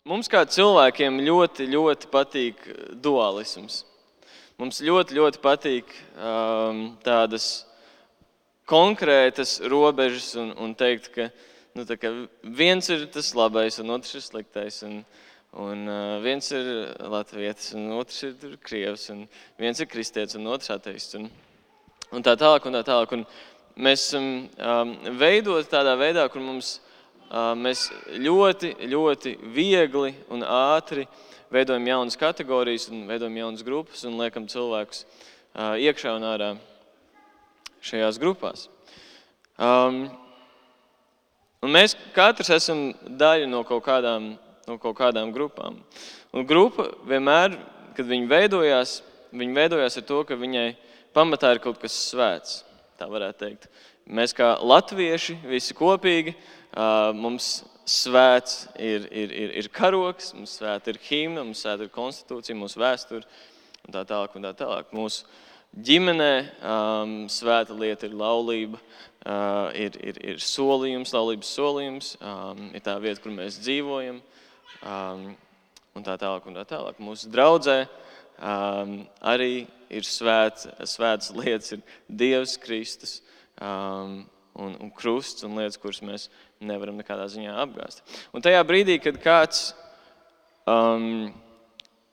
Mums kā cilvēkiem ļoti, ļoti patīk dualisms. Mums ļoti, ļoti patīk tādas konkrētas robežas un teikt, ka, ka viens ir tas labais un otrs ir sliktais. Un viens ir latvietis un otrs ir krievs. Un viens ir kristietis un otrs ateists. Un tā tālāk un tā tālāk. Un mēs esam veidoti tādā veidā, kur mēs ļoti, ļoti viegli un ātri veidojam jaunas kategorijas un veidojam jaunas grupas un liekam cilvēkus iekšā un ārā šajās grupās. Un mēs katrs esam daļa no kaut kādām grupām. Un grupa vienmēr, kad viņi veidojās ar to, ka viņai pamatā ir kaut kas svēts, tā varētu teikt. Mēs kā latvieši visi kopīgi, mums svēts ir karoks, mums svēta ir himna, mums svēta ir konstitūcija, mūsu vēsture un tā tālāk un tā tālāk. Mūsu ģimenē svēta lieta ir laulība, ir solījums, laulības solījums, ir tā vieta, kur mēs dzīvojam un tā tālāk un tā tālāk. Mūsu draudzē arī ir svētas lietas, ir Dievs, Kristus un krusts un lietas, kuras mēs nevaram nekādā ziņā apgāzt. Un tajā brīdī, kad kāds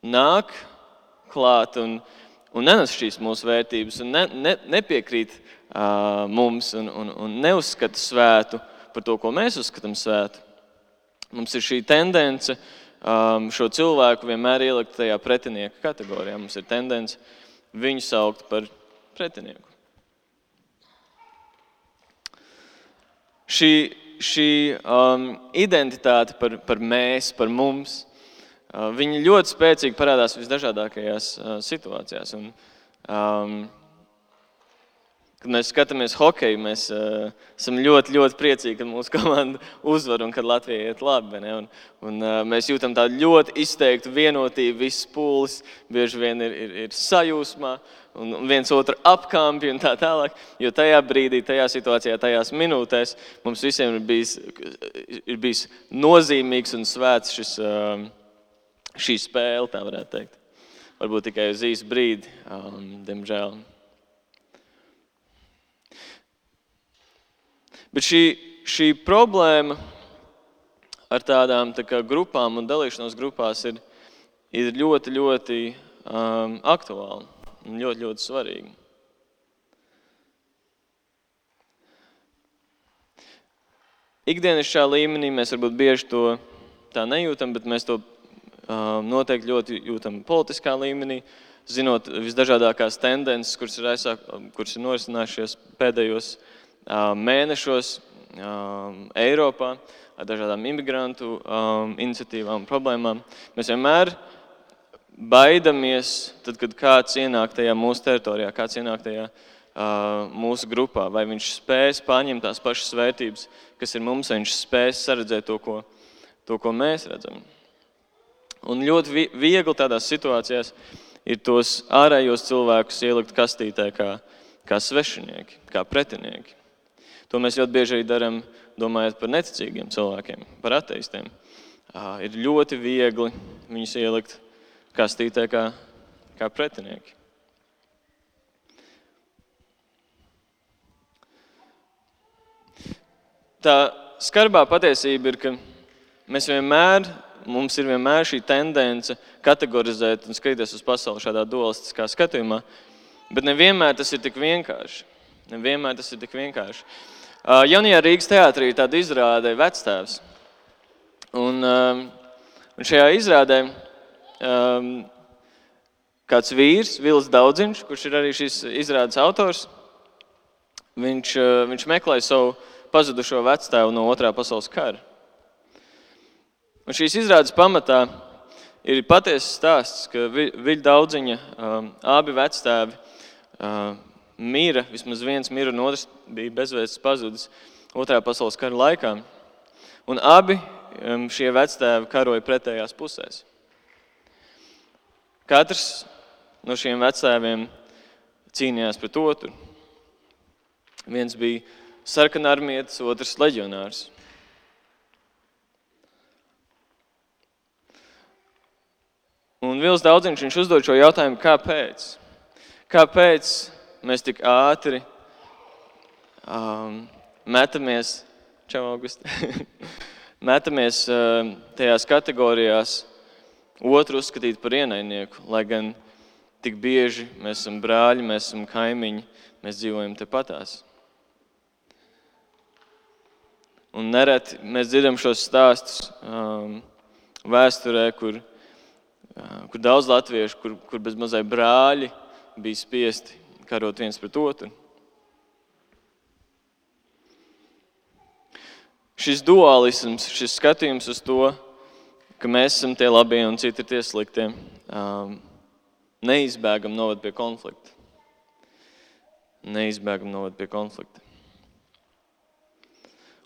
nāk klāt un nenes šīs mūsu vērtības un nepiekrīt mums un neuzskata svētu par to, ko mēs uzskatām svētu, mums ir šī tendence šo cilvēku vienmēr ielikt tajā pretinieka kategorijā. Mums ir tendence viņu saukt par pretinieku. Šī identitāte par mēs, par mums, viņa ļoti spēcīgi parādās visdažādākajās situācijās. Un, kad mēs skatāmies hokeju, mēs esam ļoti, ļoti priecīgi, kad mūsu komanda uzvar un kad Latvija iet labi. Un mēs jūtam tādu ļoti izteiktu vienotību, viss pūlis bieži vien ir sajūsmā un viens otru apkampi un tā tālāk. Jo tajā brīdī, tajā situācijā, tajās minūtēs mums visiem ir bijis nozīmīgs un svēts šī spēle, tā varētu teikt. Varbūt tikai uz īsu brīdi, diemžēl. Bet šī problēma ar tādām grupām un dalīšanos grupās ir ļoti, ļoti aktuāla un ļoti, ļoti svarīga. Ikdienišķā līmenī mēs varbūt bieži to tā nejūtam, bet mēs to noteikti ļoti jūtam politiskā līmenī, zinot visdažādākās tendences, kuras ir norisinājušies pēdējos mēnešos Eiropā ar dažādām imigrantu iniciatīvām un problēmām. Mēs vienmēr baidamies, tad, kad kāds ienāk tajā mūsu teritorijā, kāds ienāk tajā mūsu grupā, vai viņš spēs paņemt tās pašas vērtības, kas ir mums, vai viņš spēs saredzēt to, ko mēs redzam. Un ļoti viegli tādās situācijās ir tos ārējos cilvēkus ielikt kastītē kā svešinieki, kā pretinieki. To mēs ļoti bieži arī darām, domājot par neticīgiem cilvēkiem, par ateistiem. Ir ļoti viegli viņus ielikt kastītē kā pretinieki. Tā skarbā patiesība ir, ka mums ir vienmēr šī tendence kategorizēt un skatīties uz pasauli šādā dualistiskā skatījumā, bet nevienmēr tas ir tik vienkārši. Jaunajā Rīgas teātrī ir tāda izrāde Vectēvs. Un šajā izrādē kāds vīrs, Vils Daudziņš, kurš ir arī šīs izrādes autors, viņš meklē savu pazudušo vectēvu no Otrā pasaules kara. Un šīs izrādes pamatā ir patiesas stāsts, ka Viļa Daudziņa abi vectēvi mira, vismaz viens mira un otrs bija bezvēsts pazudis Otrā pasaules kara laikā. Un abi šie vectēvi karoja pretējās pusēs. Katrs no šiem vectēviem cīnījās pret otru. Viens bija sarkanarmietis, otrs leģionārs. Un Vils Daudziņš, viņš uzdod šo jautājumu, kāpēc? Kāpēc mēs tik ātri metamies, metamies tajās kategorijās otru uzskatīt par ienaidnieku, lai gan tik bieži mēs esam brāļi, mēs esam kaimiņi, mēs dzīvojam tepatās. Un nereti mēs dzirdam šos stāstus vēsturē, kur daudz latviešu, kur bez mazai brāļi bija spiesti karot viens pret otru. Šis dualisms, šis skatījums uz to, ka mēs esam tie labie un citi ir tie sliktie, neizbēgam novad pie konflikta. Neizbēgam novad pie konflikta.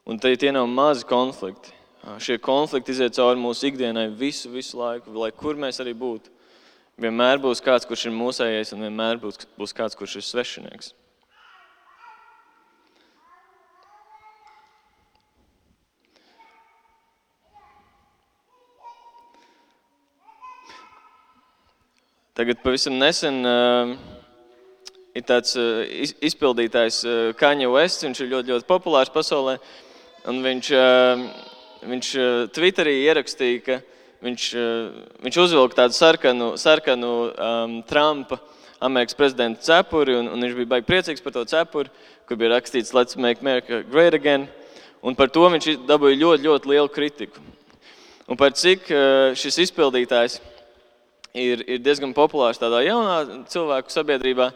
Un tie nav mazi konflikti. Šie konflikti iziet cauri mūsu ikdienai visu laiku, lai kur mēs arī būtu. Vienmēr būs kāds, kurš ir mūsējais, un vienmēr būs kāds, kurš ir svešinieks. Tagad pavisam nesen ir tāds izpildītājs Kanye West, viņš ir ļoti populārs pasaulē, un viņš Twitterī ierakstīja, ka viņš uzvilka tādu sarkanu Trumpa, Amerikas prezidenta cepuri, un viņš bija baigi priecīgs par to cepuri, kur bija rakstīts Let's make America great again, un par to viņš dabūja ļoti lielu kritiku. Un par cik šis izpildītājs ir diezgan populārs tādā jaunā cilvēku sabiedrībā,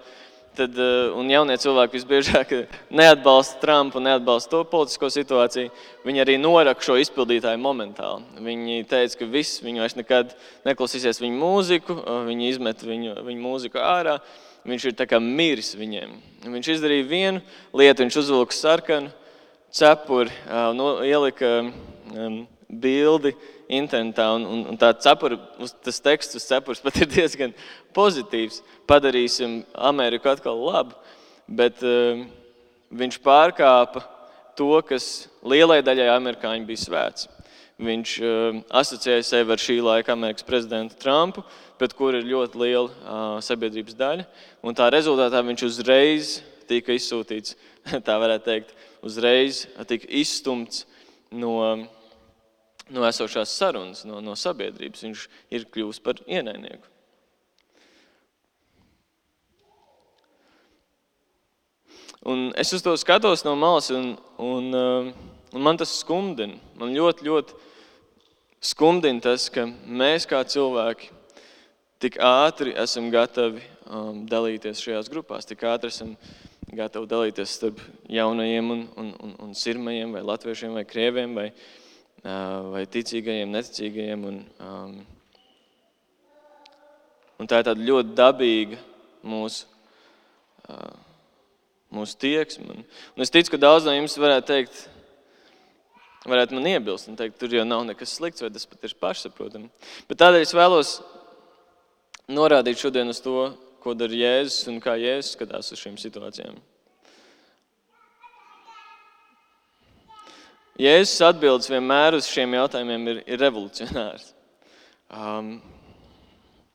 un jaunie cilvēki visbiežāk neatbalsta Trumpu, neatbalsta to politisko situāciju, viņi arī noraka šo izpildītāju momentāli. Viņi teica, ka viņi vairs nekad neklausīsies viņu mūziku, viņi izmet viņu mūziku ārā, viņš ir tā kā miris viņiem. Viņš izdarīja vienu lietu, viņš uzvilka sarkanu cepuri, ielika bildi internetā, un tā cepura, tas teksts uz cepuras pat ir diezgan pozitīvs. Padarīsim Ameriku atkal labu, bet viņš pārkāpa to, kas lielai daļai amerikāņu bija svēts. Viņš asociēja sevi ar šī laika Amerikas prezidentu Trumpu, pret kuru ir ļoti liela sabiedrības daļa, un tā rezultātā viņš uzreiz tika izsūtīts, tā varētu teikt, uzreiz tika izstumts no esošās sarunas, no sabiedrības. Viņš ir kļuvis par ienaidnieku. Un es uz to skatos no malas, un man tas skumdina. Man ļoti skumdina tas, ka mēs kā cilvēki tik ātri esam gatavi dalīties šajās grupās, tik ātri esam gatavi dalīties starp jaunajiem un sirmajiem, vai latviešiem, vai krieviem, vai ticīgajiem, neticīgajiem. Un tā ir tāda ļoti dabīga mūsu tieksme. Un es ticu, ka daudz no jums varētu man iebilst un teikt, tur jau nav nekas slikts, vai tas pat ir pašsaprotami. Bet tādēļ es vēlos norādīt šodien uz to, ko dara Jēzus un kā Jēzus skatās uz šīm situācijām. Jēzus atbildes vienmēr uz šiem jautājumiem ir revolucionārs.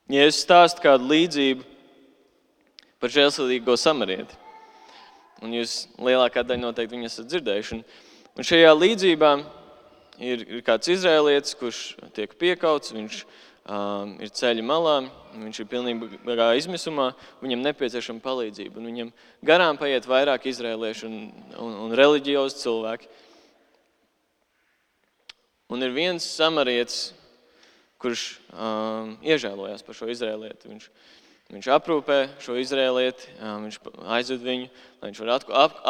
Jēzus stāsta kādu līdzību par žēlsirdīgo samarieti. Un jūs lielākā daļa noteikti viņu esat dzirdējuši. Un šajā līdzībā ir kāds izrēlietis, kurš tiek piekauts, viņš ir ceļa malā, viņš ir pilnībā izmisumā, viņam nepieciešama palīdzība. Un viņam garām paiet vairāk izrēliešu un reliģiozi cilvēki. Un ir viens samarietis, kurš iežēlojās par šo izrēlieti. Viņš aprūpē šo izrēlieti, viņš aizved viņu, lai viņš var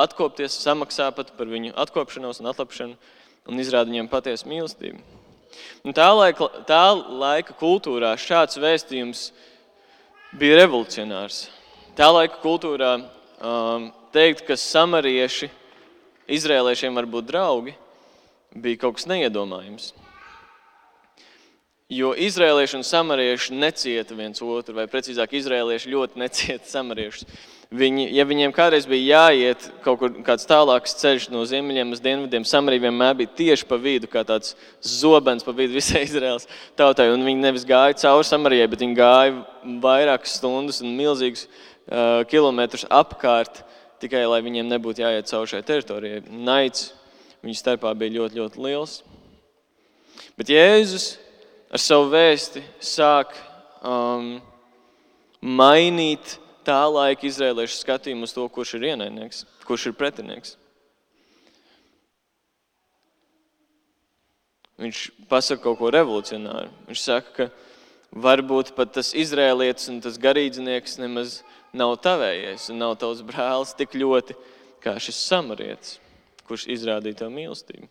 atkopties, samaksā pat par viņu atkopšanos un atlapšanu un izrāda viņam patiesu mīlestību. Un tā laika kultūrā šāds vēstījums bija revolucionārs. Tā laika kultūrā teikt, ka samarieši izrēliešiem var būt draugi, bija kaut kas neiedomājams. Jo izrēlieši un samarieši necieta viens otru, vai precīzāk izrēlieši ļoti necieta samariešus. Ja viņiem kādreiz bija jāiet kaut kur kāds tālāks ceļš no ziemeļiem uz dienvidiem, Samarija vienmēr bija tieši pa vidu, kā tāds zobens pa vidu visai Izraēlas tautai. Un viņi nevis gāja cauri Samarijai, bet viņi gāja vairākas stundas un milzīgus kilometrus apkārt, tikai lai viņiem nebūtu jāiet cauri šai teritorijai. Naids viņu starpā bija ļoti, ļoti liels. Bet Jēzus ar savu vēsti sāk mainīt tā laika izrēliešu skatījumu uz to, kurš ir ienaidnieks, kurš ir pretinieks. Viņš pasaka kaut ko revolucionāru. Viņš saka, ka varbūt pat tas izrēlietis un tas garīdznieks nemaz nav tavējies un nav tavs brālis tik ļoti, kā šis samarietis, kurš izrādīja tev mīlestību.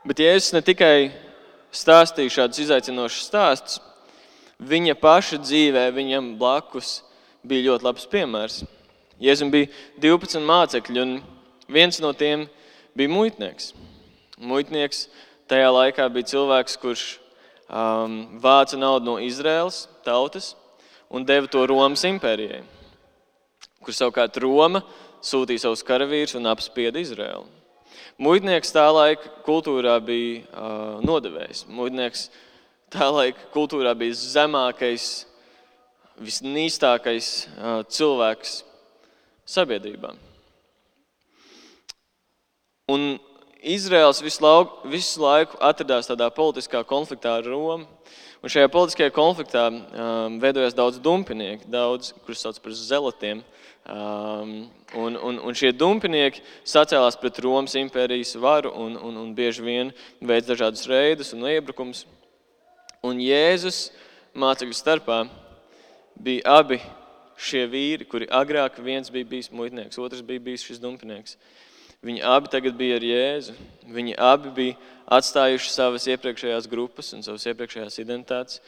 Bet Jēzus ne tikai stāstīja šādus izaicinošus stāstus, viņa paša dzīvē, viņam blakus bija ļoti labs piemērs. Jēzum bija 12 mācekļi, un viens no tiem bija muitnieks. Muitnieks tajā laikā bija cilvēks, kurš vāca naudu no Izraēlas tautas un deva to Romas impērijai, kur savukārt Roma sūtīja savus karavīrus un apspieda Izraēlu. Muitnieks tā laika kultūrā bija nodevējs. Muitnieks tā laika kultūrā bija zemākais, visnīstākais cilvēks sabiedrībā. Un Izraels visu laiku atradās tādā politiskā konfliktā ar Romu. Un šajā politiskajā konfliktā veidojās daudz dumpinieki, kurus sauc par zelatiem. Un šie dumpinieki sacēlās pret Romas impērijas varu un bieži vien veic dažādus reidus un iebrukums. Un Jēzus mācekļu starpā bija abi šie vīri, kuri agrāk viens bija bijis muitnieks, otrs bija bijis šis dumpinieks. Viņi abi tagad bija ar Jēzu. Viņi abi bija atstājuši savas iepriekšējās grupas un savas iepriekšējās identitātes.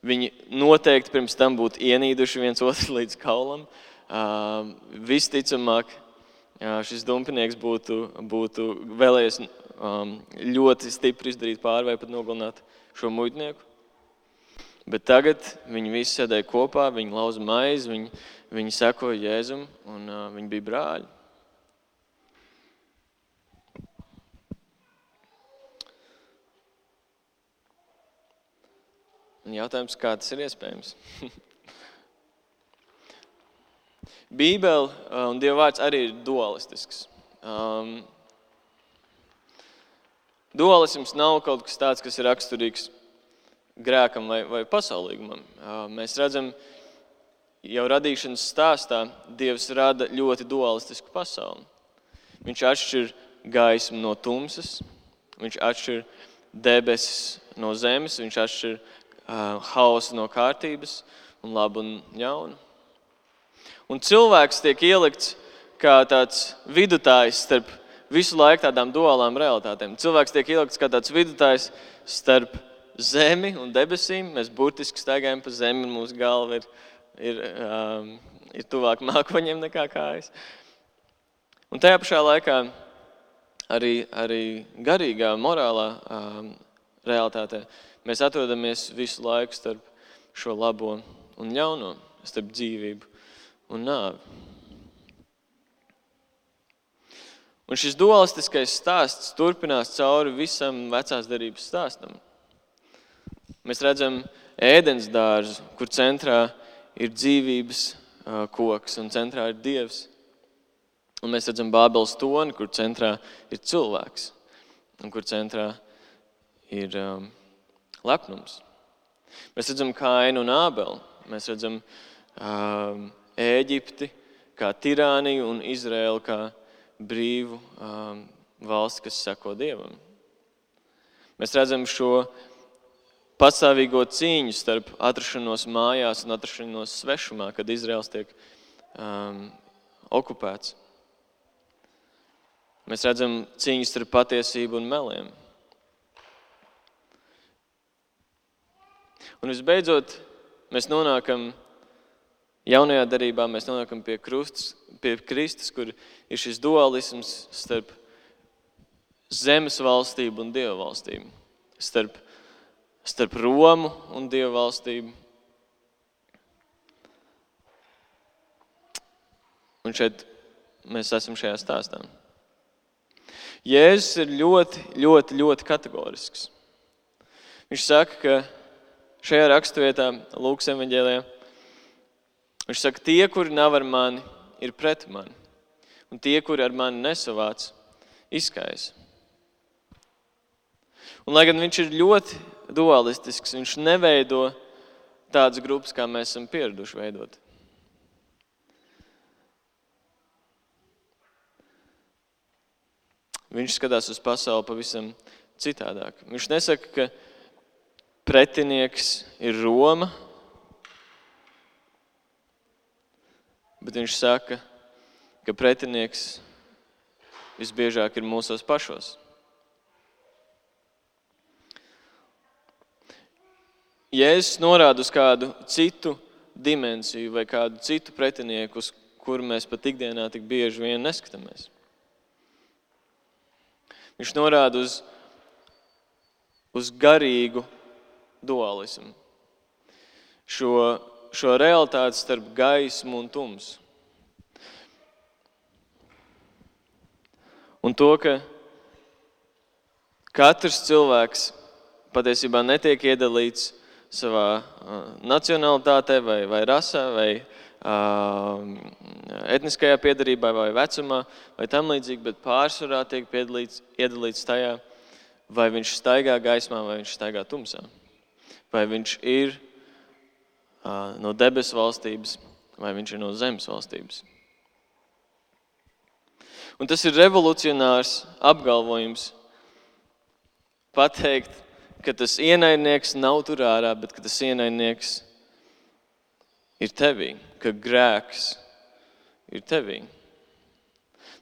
Viņi noteikti pirms tam būtu ienīduši viens otru līdz kaulam. Visticamāk, šis dumpinieks būtu vēlējies ļoti stipri izdarīt pāri vai pat nogalināt šo muitnieku. Bet tagad viņi visi sēdēja kopā, viņi lauza maizi, viņi sekoja Jēzum un viņi bija brāļi. Un jautājums, kā tas ir iespējams? Bībele un Dieva vārds arī ir dualistisks. Dualisms nav kaut kas tāds, kas ir raksturīgs grēkam vai pasaulīgumam. Mēs redzam, jau radīšanas stāstā Dievs rada ļoti dualistisku pasauli. Viņš atšķir gaismu no tumsas, viņš atšķir debesis no zemes, viņš atšķir hausu no kārtības un labu un ļaunu. Un cilvēks tiek ielikts kā tāds vidutājs starp visu laiku tādām duālām realitātēm. Cilvēks tiek ielikts kā tāds vidutājs starp zemi un debesīm. Mēs burtiski staigājam pa zemi un mūsu galva ir tuvāk mākoņiem nekā kājas. Un tajā pašā laikā arī garīgā, morālā realitātē mēs atrodamies visu laiku starp šo labo un ļauno, starp dzīvību un nāvi. Un šis dualistiskais stāsts turpinās cauri visam vecās derības stāstam. Mēs redzam ēdens dārzu, kur centrā ir dzīvības koks un centrā ir Dievs. Un mēs redzam Bābeles toni, kur centrā ir cilvēks un kur centrā ir lepnums. Mēs redzam Kainu un Ābeli. Mēs redzam Ēģipti kā tirāniju un Izraēlu kā brīvu valsti, kas seko Dievam. Mēs redzam šo pastāvīgo cīņu starp atrašanos mājās un atrašanos svešumā, kad Izraels tiek okupēts. Mēs redzam cīņu starp patiesību un meliem. Un visbeidzot, mēs nonākam jaunajā derībā, mēs nonākam pie Kristus, kur ir šis dualisms starp zemes valstību un Dieva valstību, starp Romu un Dieva valstību Un šeit mēs esam šajā stāstā. Jēzus ir ļoti kategorisks. Viņš saka, ka šajā raksturvietā, Lūkas evaņģēlijā, viņš saka, tie, kuri nav ar mani, ir pret mani. Un tie, kuri ar mani nesavāc, izskaisa. Un lai gan viņš ir ļoti dualistisks, viņš neveido tādas grupas, kā mēs esam pieraduši veidot. Viņš skatās uz pasauli pavisam citādāk. Viņš nesaka, ka pretinieks ir Roma, bet viņš saka, ka pretinieks visbiežāk ir mūsos pašos. Jēzus norāda uz kādu citu dimensiju vai kādu citu pretinieku, uz kuru mēs pat ikdienā tik bieži vien neskatāmies. Viņš norāda uz garīgu dualismu. Šo realitāti starp gaismu un tumsu. Un to, ka katrs cilvēks patiesībā netiek iedalīts savā nacionalitātē vai rasē vai etniskajā piedarībā vai vecumā vai tam līdzīgi, bet pārsvarā tiek iedalīts tajā, vai viņš staigā gaismā vai viņš staigā tumsā. Vai viņš ir no debesu valstības vai viņš ir no zemes valstības. Un tas ir revolucionārs apgalvojums pateikt, ka tas ienaidnieks nav tur ārā, bet ka tas ienaidnieks ir tevī, ka grēks ir tevī.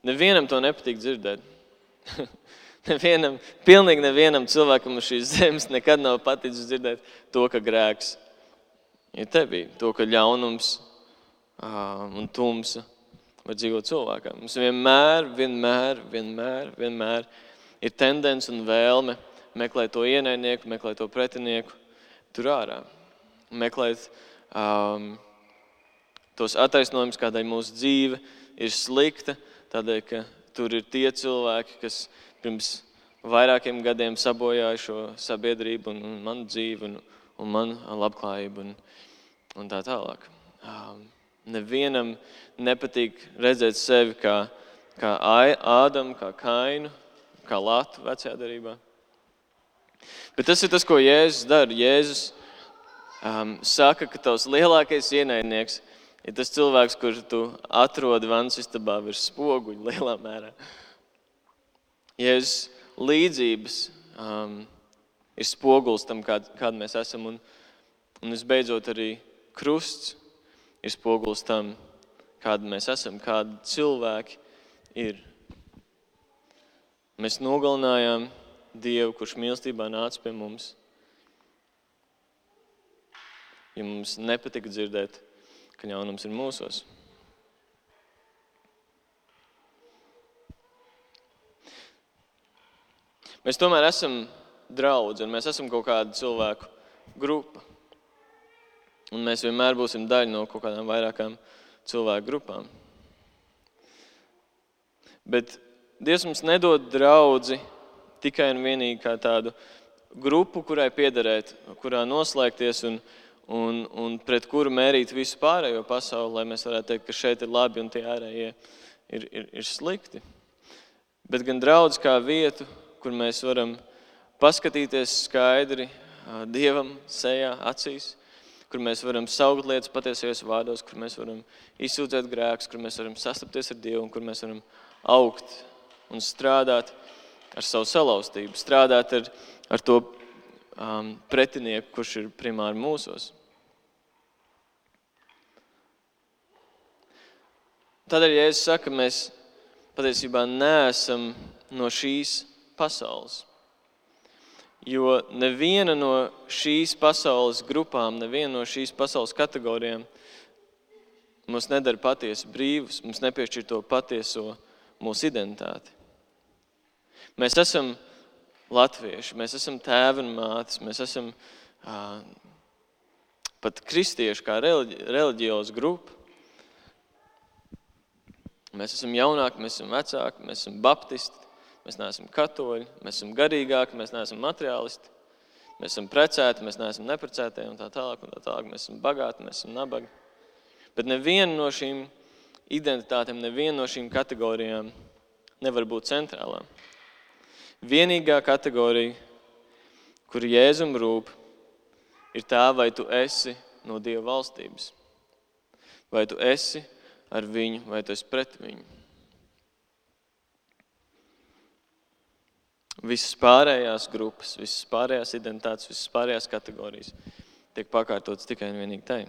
Nevienam to nepatīk dzirdēt. Pilnīgi nevienam cilvēkam uz šīs zemes nekad nav paticis dzirdēt to, ka grēks ir tevī, to, ka ļaunums un tumsa var dzīvot cilvēkam. Mums vienmēr ir tendence un vēlme meklēt to ienaidnieku, meklēt to pretinieku tur ārā. Meklēt tos attaisnojumus, kādēļ mūsu dzīve ir slikta, tādēļ, ka tur ir tie cilvēki, kas pirms vairākiem gadiem sabojāja šo sabiedrību un manu dzīvi un manu labklājību un tā tālāk. Nevienam nepatīk redzēt sevi kā Ādamu, kā Kainu, kā Latu vecajā derībā. Bet tas ir tas, ko Jēzus dara. Jēzus saka, ka tavs lielākais ienaidnieks ir tas cilvēks, kurš tu atrodi vannas istabā virs spoguļa lielā mērā. Jēzus līdzības ir spogulis tam, kāda mēs esam. Un visbeidzot arī krusts ir spogulis tam, kāda mēs esam, kādi cilvēki ir. Mēs nogalinājām Dievu, kurš mīlestībā nāca pie mums. Ja mums nepatika dzirdēt, ka ļaunums ir mūsos. Mēs tomēr esam draudzi un mēs esam kaut kāda cilvēku grupa. Un mēs vienmēr būsim daļa no kaut kādām vairākām cilvēku grupām. Bet Dievs mums nedod draudzi tikai un vienīgi kā tādu grupu, kurai piederēt, kurā noslēgties un pret kuru mērīt visu pārējo pasauli, lai mēs varētu teikt, ka šeit ir labi un tie ārējie ir slikti. Bet gan draudz kā vietu, kur mēs varam paskatīties skaidri Dievam sejā, acīs, kur mēs varam saukt lietas patiesajos vārdos, kur mēs varam izsūdzēt grēkus, kur mēs varam sastapties ar Dievu un kur mēs varam augt un strādāt ar savu salauztību, strādāt ar to pretinieku, kurš ir primāri mūsos. Tādēļ, ja es saku, mēs patiesībā neesam no šīs pasaules. Jo neviena no šīs pasaules grupām, neviena no šīs pasaules kategorijām mums nedara patiesi brīvus, mums nepiešķir to patieso mūsu identitāti. Mēs esam latvieši, mēs esam tēvi un mātes, mēs esam pat kristieši kā reliģioza grupa. Mēs esam jaunāki, mēs esam vecāki, mēs esam baptisti, mēs neesam katoļi, mēs esam garīgāki, mēs neesam materiālisti, mēs esam precēti, mēs neesam neprecētie un tā tālāk. Mēs esam bagāti, mēs esam nabagi. Bet neviena no šīm identitātēm, neviena no šīm kategorijām nevar būt centrālā. Vienīgā kategorija, kur Jēzum rūp, ir tā, vai tu esi no Dieva valstības. Vai tu esi ar viņu, vai tu esi pret viņu. Visas pārējās grupas, visas pārējās identitātes, visas pārējās kategorijas tiek pakārtotas tikai un vienīgi tai.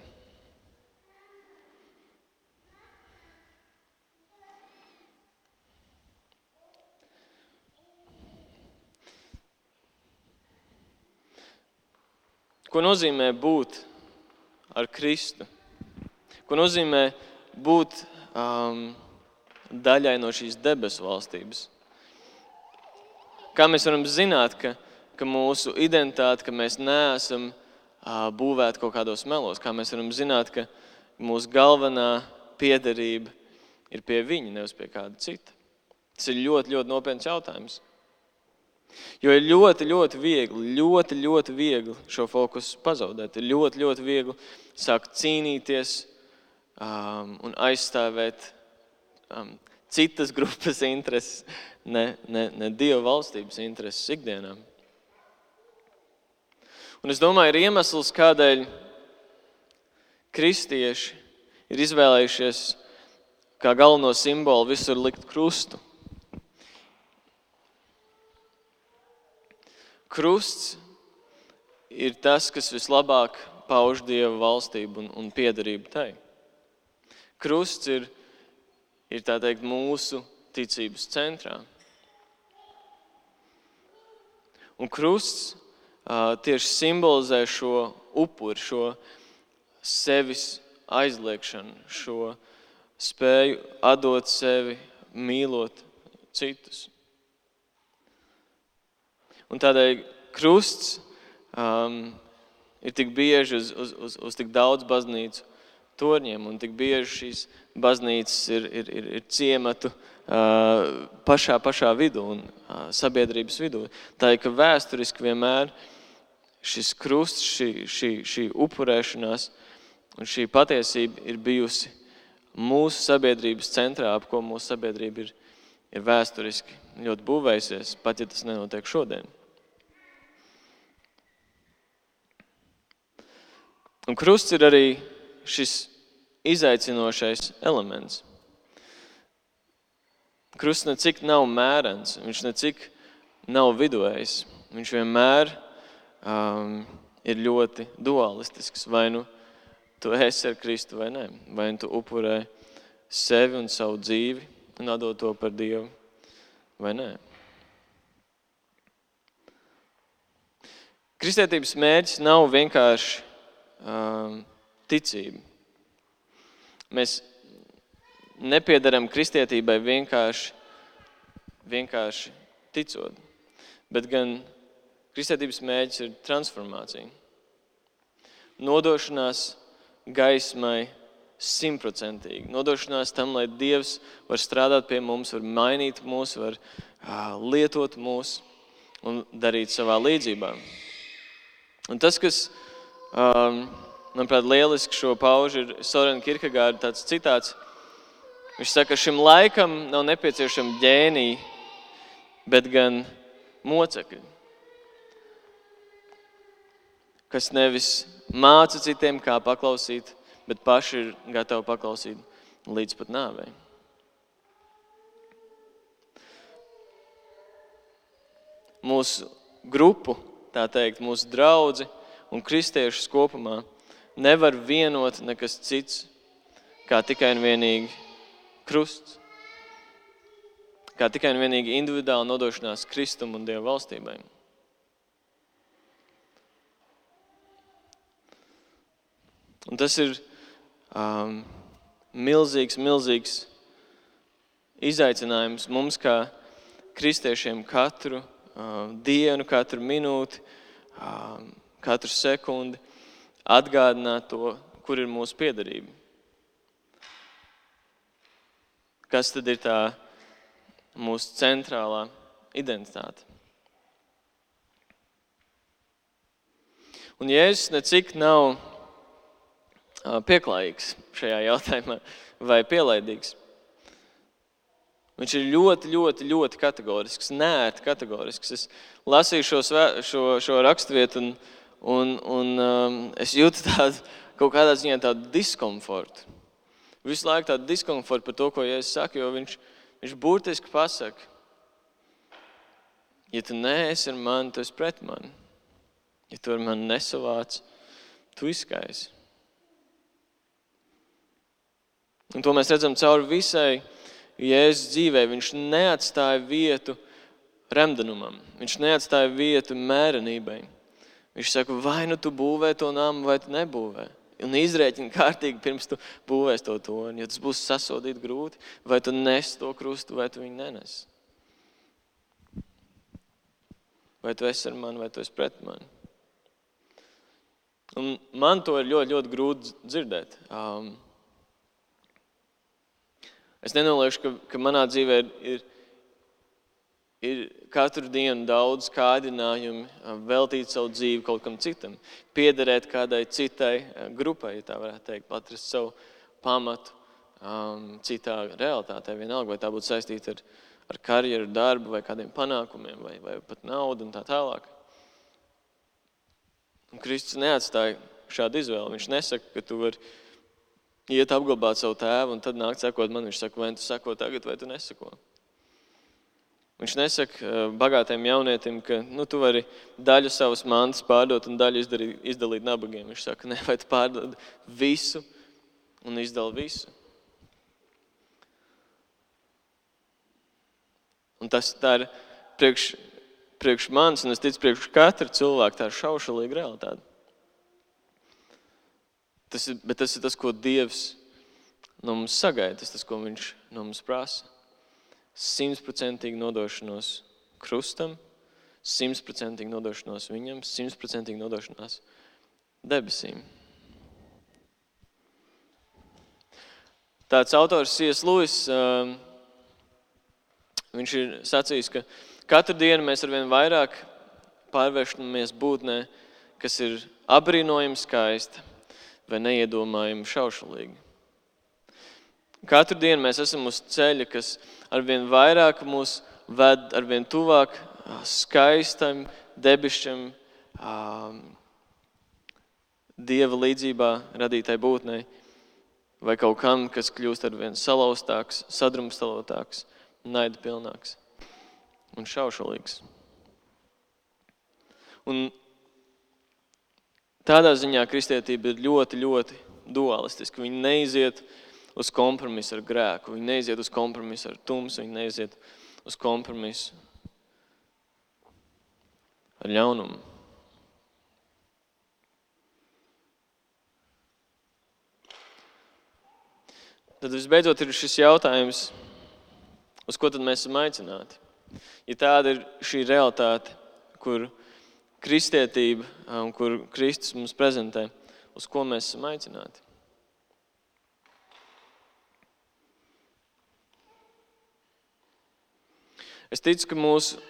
Ko nozīmē būt ar Kristu? Ko nozīmē būt daļai no šīs debesu valstības? Kā mēs varam zināt, ka mūsu identitāte, ka mēs neesam būvēti kaut kādos melos? Kā mēs varam zināt, ka mūsu galvenā piederība ir pie viņa, nevis pie kāda cita? Tas ir ļoti, ļoti nopietns jautājums. Jo ir ļoti viegli šo fokusu pazaudēt. Ir ļoti viegli sākt cīnīties un aizstāvēt citas grupas intereses, ne Dieva valstības intereses ikdienā. Un es domāju, ir iemesls, kādēļ kristieši ir izvēlējušies kā galveno simbolu visur likt krustu. Krusts ir tas, kas vislabāk pauž Dieva valstību un piederību tai. Krusts ir tā teikt mūsu ticības centrā. Un krusts tieši simbolizē šo upuri, šo sevis aizliekšanu, šo spēju atdot sevi, mīlot citus. Un tādēļ krusts ir tik bieži uz tik daudz baznīcu torņiem, un tik bieži šīs baznīcas ir ciematu pašā vidū un sabiedrības vidū. Tā ir, ka vēsturiski vienmēr šis krusts, šī upurēšanās un šī patiesība ir bijusi mūsu sabiedrības centrā, ap ko mūsu sabiedrība ir vēsturiski ļoti būvējusies, pat ja tas nenotiek šodien. Un krusts ir arī šis izaicinošais elements. Krusts necik nav mērens, viņš necik nav viduvējs. Viņš vienmēr ir ļoti dualistisks. Vai nu tu esi ar Kristu vai nē. Vai nu tu upurē sevi un savu dzīvi un atdod to par Dievu vai nē. Kristietības mērķis nav vienkārši ticība. Mēs nepiedaram kristietībai vienkārši ticot, bet gan kristietības mērķis ir transformācija. Nodošanās gaismai 100%. Nodošanās tam, lai Dievs var strādāt pie mums, var mainīt mūs, var lietot mūs un darīt savā līdzībā. Un tas, kas manuprāt, lieliski šo pauž ir Søren Kierkegaarda tāds citāts. Viņš saka, ka šim laikam nav nepieciešami ģēniji, bet gan mocekļi, kas nevis māca citiem, kā paklausīt, bet paši ir gatavi paklausīt līdz pat nāvei. Mūsu grupu, tā teikt, mūsu draudzi un kristiešus kopumā nevar vienot nekas cits, kā tikai un vienīgi krusts, kā tikai un vienīgi individuāla nodošanās Kristum un Dieva valstībai. Un tas ir milzīgs izaicinājums mums kā kristiešiem katru dienu, katru minūti, katru sekundi atgādināt to, kur ir mūsu piederība. kas tad ir tā mūsu centrālā identitāte. Un Jēzus necik nav pieklājīgs šajā jautājumā vai pielaidīgs. Viņš ir ļoti, ļoti, ļoti kategorisks, neērti kategorisks. Es lasīju šo raksturvietu un es jūtu tādu, kaut kādā ziņā tādu diskomfortu. Visu laiku tādu diskomfortu par to, ko Jēzus saka, jo viņš burtiski pasaka, ja tu neesi ar mani, tu esi pret mani. Ja tu ar mani nesavāc, tu izskaisi. Un to mēs redzam cauri visai Jēzus dzīvē. Viņš neatstāja vietu remdenumam. Viņš neatstāja vietu mērenībai. Viņš saka, vai nu tu būvē to namu, vai tu nebūvē. Un izrēķini kārtīgi pirms tu būvēs to torni. Ja tas būs sasodīt grūti, vai tu nes to krustu, vai tu viņu nenes. Vai tu esi ar mani, vai tu esi pret mani. Un man to ir ļoti, ļoti grūti dzirdēt. Es nenoliekšu, ka manā dzīvē ir katru dienu daudz kārdinājumi veltīt savu dzīvi kaut kam citam. Piederēt kādai citai grupai, ja tā varētu teikt, atrast savu pamatu citā realitātē. Vienalga, vai tā būtu saistīta ar karjeru, darbu, vai kādiem panākumiem, vai pat naudu un tā tālāk. Un Kristus neatstāja šādu izvēli. Viņš nesaka, ka tu vari iet apglabāt savu tēvu un tad nākt sekot man. Viņš saka, vai tu seko tagad, vai tu neseko. Viņš nesaka bagātiem jaunietim, ka tu vari daļu savas mantas pārdot un daļu izdalīt nabagiem. Viņš saka, ne, vai tu pārdod visu un izdali visu. Un tā ir priekš manis, un es ticu priekš katra cilvēka, tā ir šaušalīga realitāte. Bet tas ir tas, ko Dievs no mums sagaida, tas, ko viņš no mums prasa. 100% nodošanos krustam, 100% nodošanos viņam, 100% nodošanās debesīm. Tāds autors C.S. Lewis, viņš ir sacījis, ka katru dienu mēs arvien vairāk pārvēršamies būtnē, kas ir apbrīnojami skaista vai neiedomājami šaušalīgi. Katru dienu mēs esam uz ceļa, kas arvien vairāk mūs ved arvien tuvāk skaistam, debišķam, Dieva līdzībā radītai būtnei, vai kaut kam, kas kļūst arvien salauztāks, sadrumstalotāks, naida pilnāks un šaušalīgs. Un tādā ziņā kristietība ir ļoti, ļoti dualistiska. Viņi neiziet uz kompromisu ar grēku, viņi neiziet uz kompromisu ar tumsu, viņi neiziet uz kompromisu ar ļaunumu. Tad visbeidzot ir šis jautājums, uz ko tad mēs esam aicināti. Ja tāda ir šī realitāte, kur kristietība un kur Kristus mums prezentē, uz ko mēs esam aicināti. Es ticu, ka mūsu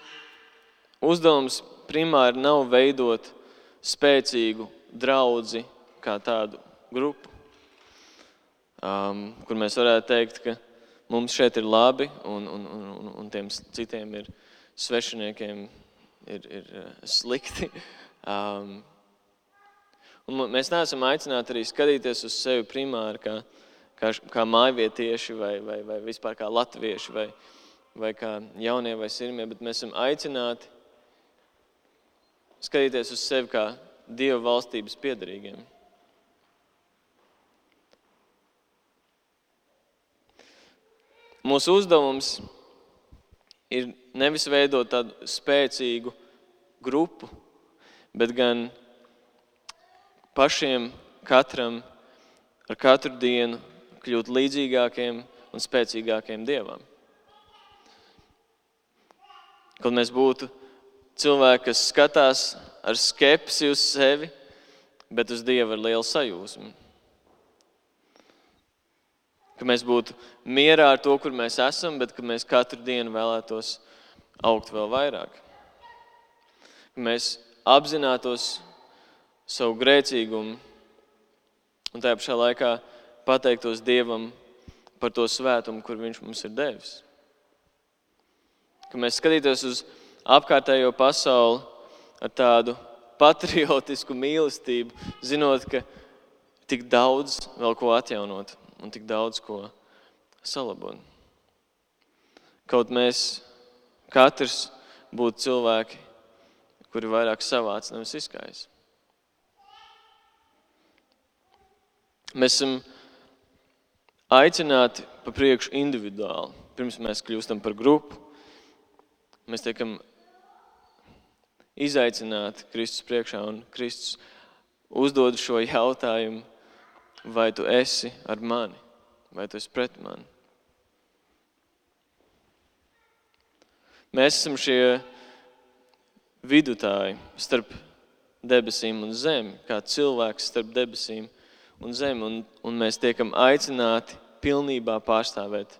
uzdevums primāri nav veidot spēcīgu draudzi kā tādu grupu, kur mēs varētu teikt, ka mums šeit ir labi un tiem citiem ir svešiniekiem ir slikti. Un mēs neesam aicināti arī skatīties uz sevi primāri kā mājvietieši vai vispār kā latvieši vai kā jaunie vai sirmie, bet mēs esam aicināti skatīties uz sevi kā Dieva valstības piederīgiem. Mūsu uzdevums ir nevis veidot tādu spēcīgu grupu, bet gan pašiem katram ar katru dienu kļūt līdzīgākiem un spēcīgākiem Dievam. Kad mēs būtu cilvēki, kas skatās ar skepsi uz sevi, bet uz Dievu ar lielu sajūsmu. Ka mēs būtu mierā ar to, kur mēs esam, bet ka mēs katru dienu vēlētos augt vēl vairāk. Ka mēs apzinātos savu grēcīgumu un tajā pašā laikā pateiktos Dievam par to svētumu, kur viņš mums ir devis. Ka mēs skatītos uz apkārtējo pasauli ar tādu patriotisku mīlestību, zinot, ka tik daudz vēl ko atjaunot un tik daudz ko salabot. Kaut mēs katrs būtu cilvēki, kuri vairāk savāc, nevis izskājas. Mēs esam aicināti pa priekšu individuāli. Pirms mēs kļūstam par grupu, mēs tiekam izaicināti Kristus priekšā, un Kristus uzdod šo jautājumu, vai tu esi ar mani, vai tu esi pret mani. Mēs esam šie vidutāji starp debesīm un zemi, kā cilvēks starp debesīm un zemi, un mēs tiekam aicināti pilnībā pārstāvēt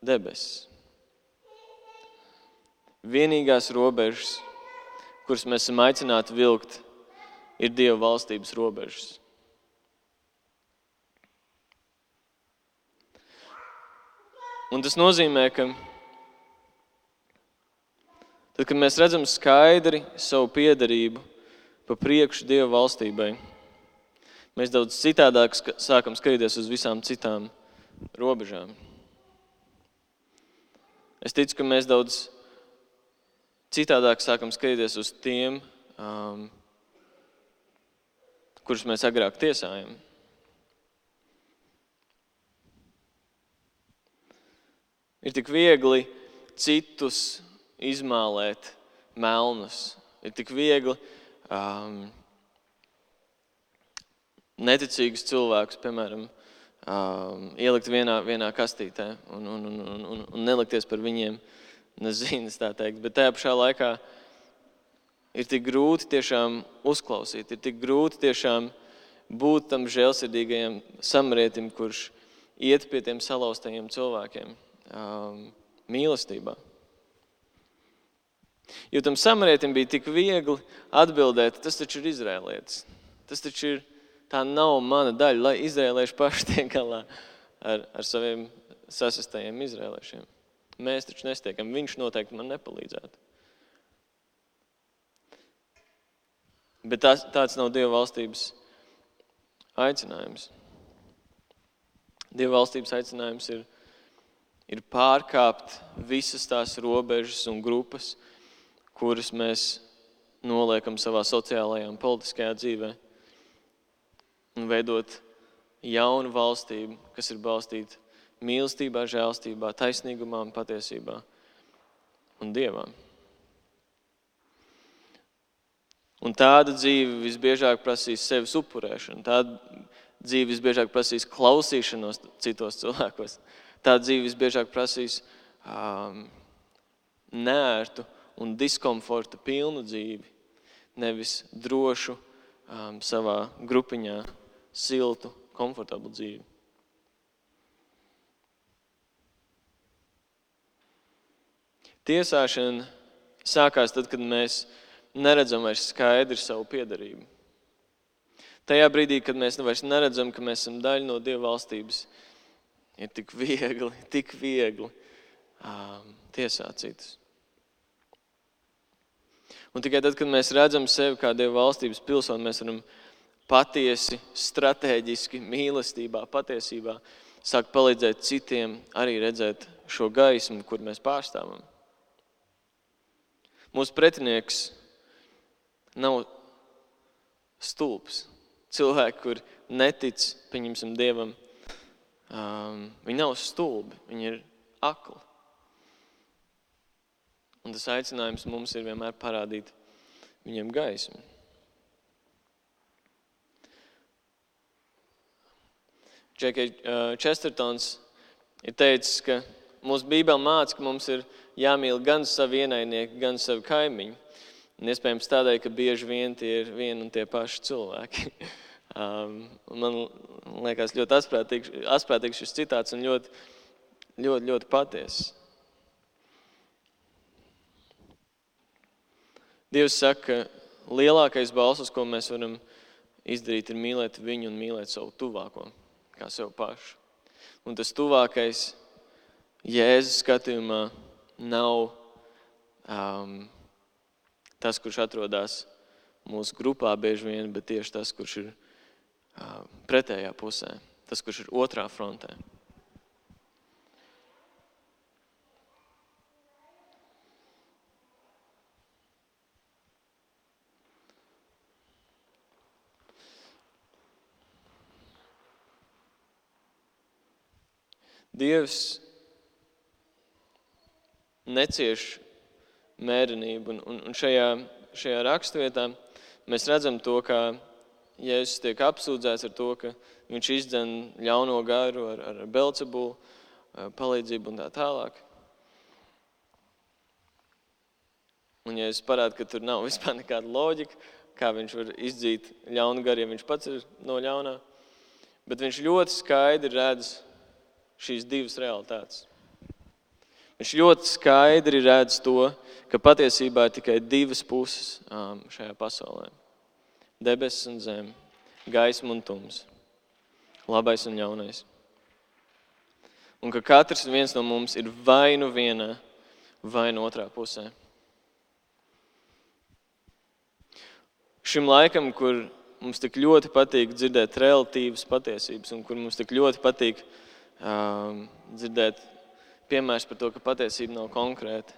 debesis. Vienīgās robežas, kuras mēs esam aicināti vilkt, ir Dieva valstības robežas. Un tas nozīmē, ka tad, kad mēs redzam skaidri savu piederību pa priekšu Dieva valstībai, mēs daudz citādāk sākam skatīties uz visām citām robežām. Es ticu, ka mēs daudz citādāk sākam skatīties uz tiem, kurus mēs agrāk tiesājam. Ir tik viegli citus izmālēt melnus. Ir tik viegli neticīgus cilvēkus, piemēram, ielikt vienā kastītē un nelikties par viņiem nezinas, tā teikt. Bet tajā pašā laikā ir tik grūti tiešām uzklausīt, ir tik grūti tiešām būt tam žēlsirdīgajam samarietim, kurš iet pie tiem salauztajiem cilvēkiem mīlestībā. Jo tam samarietim bija tik viegli atbildēt, tas taču ir izrēlietis. Tas taču ir, tā nav mana daļa, lai izrēlieši paši tiek galā ar saviem sasastajiem izrēliešiem. Mēs taču nestiekam, viņš noteikti man nepalīdzētu. Bet tāds nav Dieva valstības aicinājums. Dieva valstības aicinājums ir pārkāpt visas tās robežas un grupas, kuras mēs noliekam savā sociālajā un politiskajā dzīvē, un veidot jaunu valstību, kas ir balstīta mīlestībā, žēlstībā, taisnīgumā un patiesībā un Dievā. Un tāda dzīve visbiežāk prasīs sevis upurēšanu, tāda dzīve visbiežāk prasīs klausīšanos citos cilvēkos, tāda dzīve visbiežāk prasīs neērtu un diskomforta pilnu dzīvi, nevis drošu savā grupiņā siltu, komfortablu dzīvi. Tiesāšana sākās tad, kad mēs neredzam vairs skaidri savu piederību. Tajā brīdī, kad mēs vairs neredzam, ka mēs esam daļa no Dieva valstības, ir tik viegli tiesāt citus. Un tikai tad, kad mēs redzam sevi kā Dieva valstības pilsoni, mēs varam patiesi, strateģiski, mīlestībā, patiesībā sākt palīdzēt citiem arī redzēt šo gaismu, kur mēs pārstāvam. Mūsu pretinieks nav stulbs. Cilvēki, kur netic, pieņemsim Dievam, viņi nav stulbi, viņi ir akli. Un tas aicinājums mums ir vienmēr parādīt viņiem gaismu. J.K. Chestertons ir teicis, ka mūsu Bībele māca, ka mums ir jāmīl gan savi ienaidnieki, gan savi kaimiņi. Un iespējams tādēļ, ka bieži vien tie ir vien un tie paši cilvēki. Man liekas ļoti asprātīgs šis citāts un ļoti patiess. Dievs saka, ka lielākais balsas, ko mēs varam izdarīt, ir mīlēt viņu un mīlēt savu tuvāko, kā sev pašu. Un tas tuvākais Jēzus skatījumā nav tas, kurš atrodas mūsu grupā bieži vien, bet tieši tas, kurš ir pretējā pusē, tas, kurš ir otrā frontē. Dievs necieš mērenību, un šajā raksturvietā mēs redzam to, kā Jēzus tiek apsūdzēts ar to, ka viņš izdzen ļauno garu ar Belcebulu palīdzību un tā tālāk. Un Jēzus parāda, ka tur nav vispār nekāda loģika, kā viņš var izdzīt ļaunu garu, ja viņš pats ir no ļaunā. Bet viņš ļoti skaidri redz šīs divas realitātes. Viņš ļoti skaidri redz to, ka patiesībā ir tikai divas puses šajā pasaulē. Debesis un zeme, gaisma un tums, labais un ļaunais. Un ka katrs viens no mums ir vai nu vienā, vai nu otrā pusē. Šim laikam, kur mums tik ļoti patīk dzirdēt relatīvas patiesības un kur mums tik ļoti patīk dzirdēt piemērs par to, ka patiesība nav konkrēta.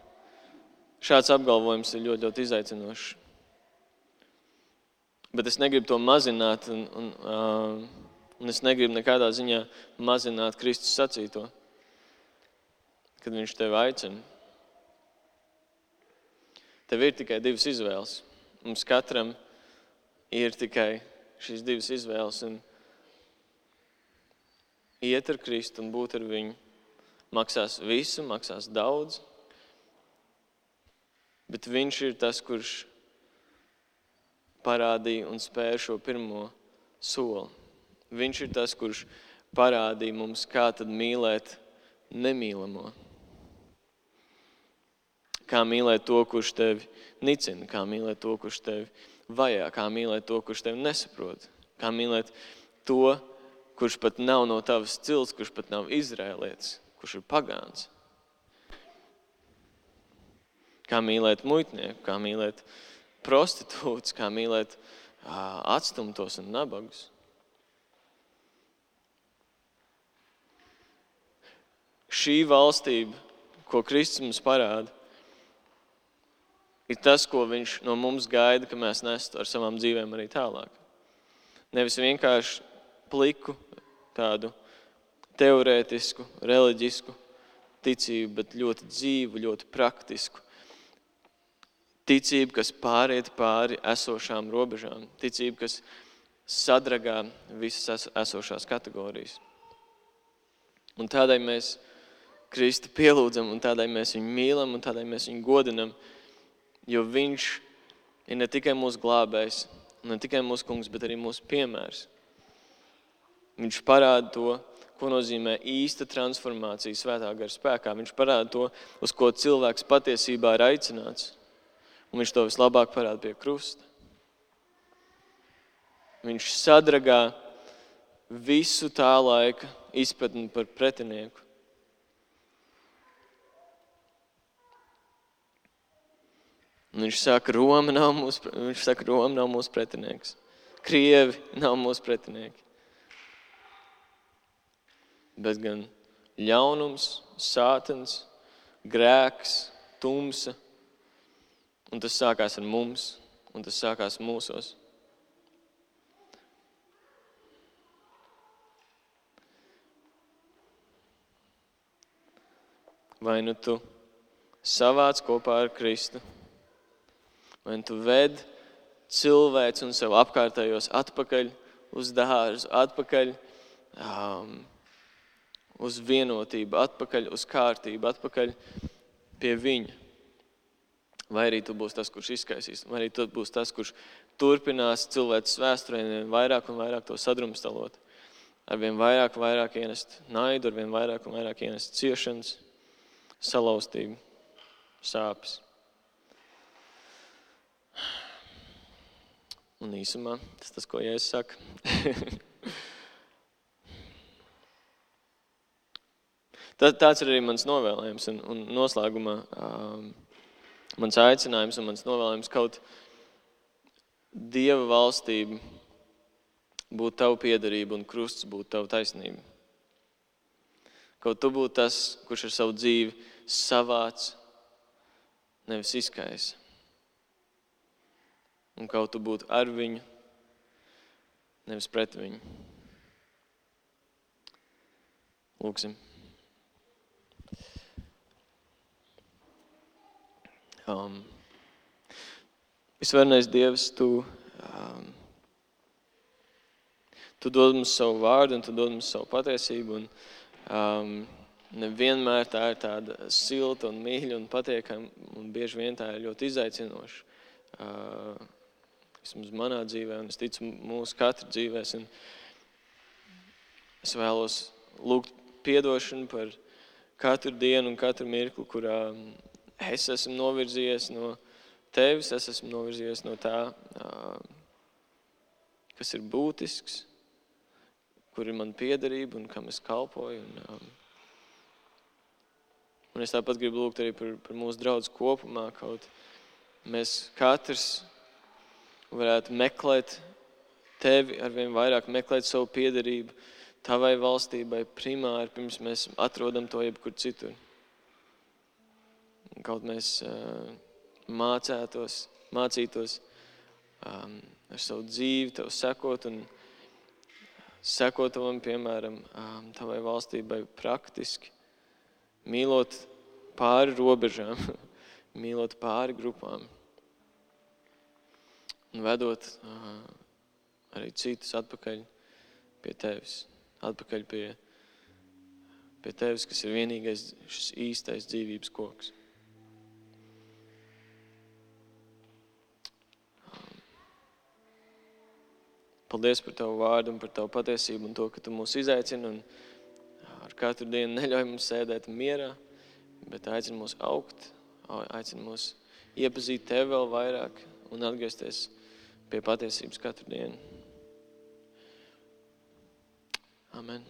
Šāds apgalvojums ir ļoti izaicinošs. Bet es negribu to mazināt un es negribu nekādā ziņā mazināt Kristus sacīto, kad viņš tevi aicina. Tev ir tikai divas izvēles. Mums katram ir tikai šīs divas izvēles. Un iet ar Kristu un būt ar viņu maksās visu, maksās daudz, bet viņš ir tas, kurš parādīja un spēja šo pirmo soli. Viņš ir tas, kurš parādīja mums, kā tad mīlēt nemīlamo. Kā mīlēt to, kurš tevi nicina, kā mīlēt to, kurš tevi vajā, kā mīlēt to, kurš tevi nesaprot, kā mīlēt to, kurš pat nav no tavas cilts, kurš pat nav izrēlietis, kurš ir pagāns. Kā mīlēt muitnieku, kā mīlēt prostitūtus, kā mīlēt atstumtos un nabagus. Šī valstība, ko Kristus mums parāda, ir tas, ko viņš no mums gaida, ka mēs nestu ar savām dzīvēm arī tālāk. Nevis vienkārši pliku, tādu teorētisku, reliģisku ticību, bet ļoti dzīvu, ļoti praktisku. Ticība, kas pāriet pāri esošām robežām. Ticība, kas sadragā visas esošās kategorijas. Un tādēļ mēs Kristu pielūdzam, un tādēļ mēs viņu mīlam, un tādēļ mēs viņu godinam, jo viņš ir ne tikai mūsu glābējs, ne tikai mūsu kungs, bet arī mūsu piemērs. Viņš parāda to, ko nozīmē īsta transformācija svētā gara spēkā. Viņš parāda to, uz ko cilvēks patiesībā ir aicināts. Un viņš to vislabāk parāda pie krusta. Viņš sadragā visu tā laika izpratni par pretinieku. Un viņš saka, Roma nav mūsu pretinieks. Krievi nav mūsu pretinieki. Bet gan ļaunums, sātans, grēks, tumsa. Un tas sākās ar mums, un tas sākās mūsos. Vai nu tu savāc kopā ar Kristu, vai nu tu ved cilvēks un sev apkārtējos atpakaļ uz dārzu, atpakaļ uz vienotību, atpakaļ uz kārtību, atpakaļ pie viņa. vai arī tu būsi tas, kurš izskaisīs, vai arī tu būsi tas, kurš turpinās cilvēces vēsturē vairāk un vairāk to sadrumstalot. Arvien vairāk un vairāk ienest naidu, arvien vairāk un vairāk ienest ciešanas, salauztību, sāpes. Un īsumā tas, ko Jēzus saka. Tāds ir arī mans novēlējums un noslēgumā mans aicinājums un mans novēlējums kaut Dieva valstība būt tavu piederību un krusts būt tavu taisnību. Kaut tu būtu tas, kurš ar savu dzīvi savāc, nevis izkaisa. Un kaut tu būtu ar viņu, nevis pret viņu. Lūksim. Visvarenais Dievs, Tu dod mums savu vārdu un Tu dod mums savu patiesību. Un nevienmēr tā ir tāda silta un mīļa un patiekama. Un bieži vien tā ir ļoti izaicinoša. Vismaz manā dzīvē un es ticu mūsu katra dzīvēs. Un es vēlos lūgt piedošanu par katru dienu un katru mirkli, kurā es esmu novirzījies no Tevis, es esmu novirzījies no tā, kas ir būtisks, kur ir man piederība un kam es kalpoju. Un es tāpat gribu lūgt arī par mūsu draudzi kopumā, kaut mēs katrs varētu meklēt Tevi, arvien vairāk meklēt savu piederību Tavai valstībai primāri, pirms mēs atrodam to jebkur citur. Kaut mēs mācītos ar savu dzīvi Tev sekot un sekot Tavam, piemēram, Tavai valstībai praktiski, mīlot pāri robežām, mīlot pāri grupām un vedot arī citus atpakaļ pie Tevis, atpakaļ pie Tevis, kas ir vienīgais šis īstais dzīvības koks. Paldies par Tavu vārdu un par Tavu patiesību un to, ka Tu mūs izaicini un ar katru dienu neļauj mums sēdēt mierā, bet aicini mūs augt, aicini mūs iepazīt Tevi vēl vairāk un atgriezties pie patiesības katru dienu. Amen.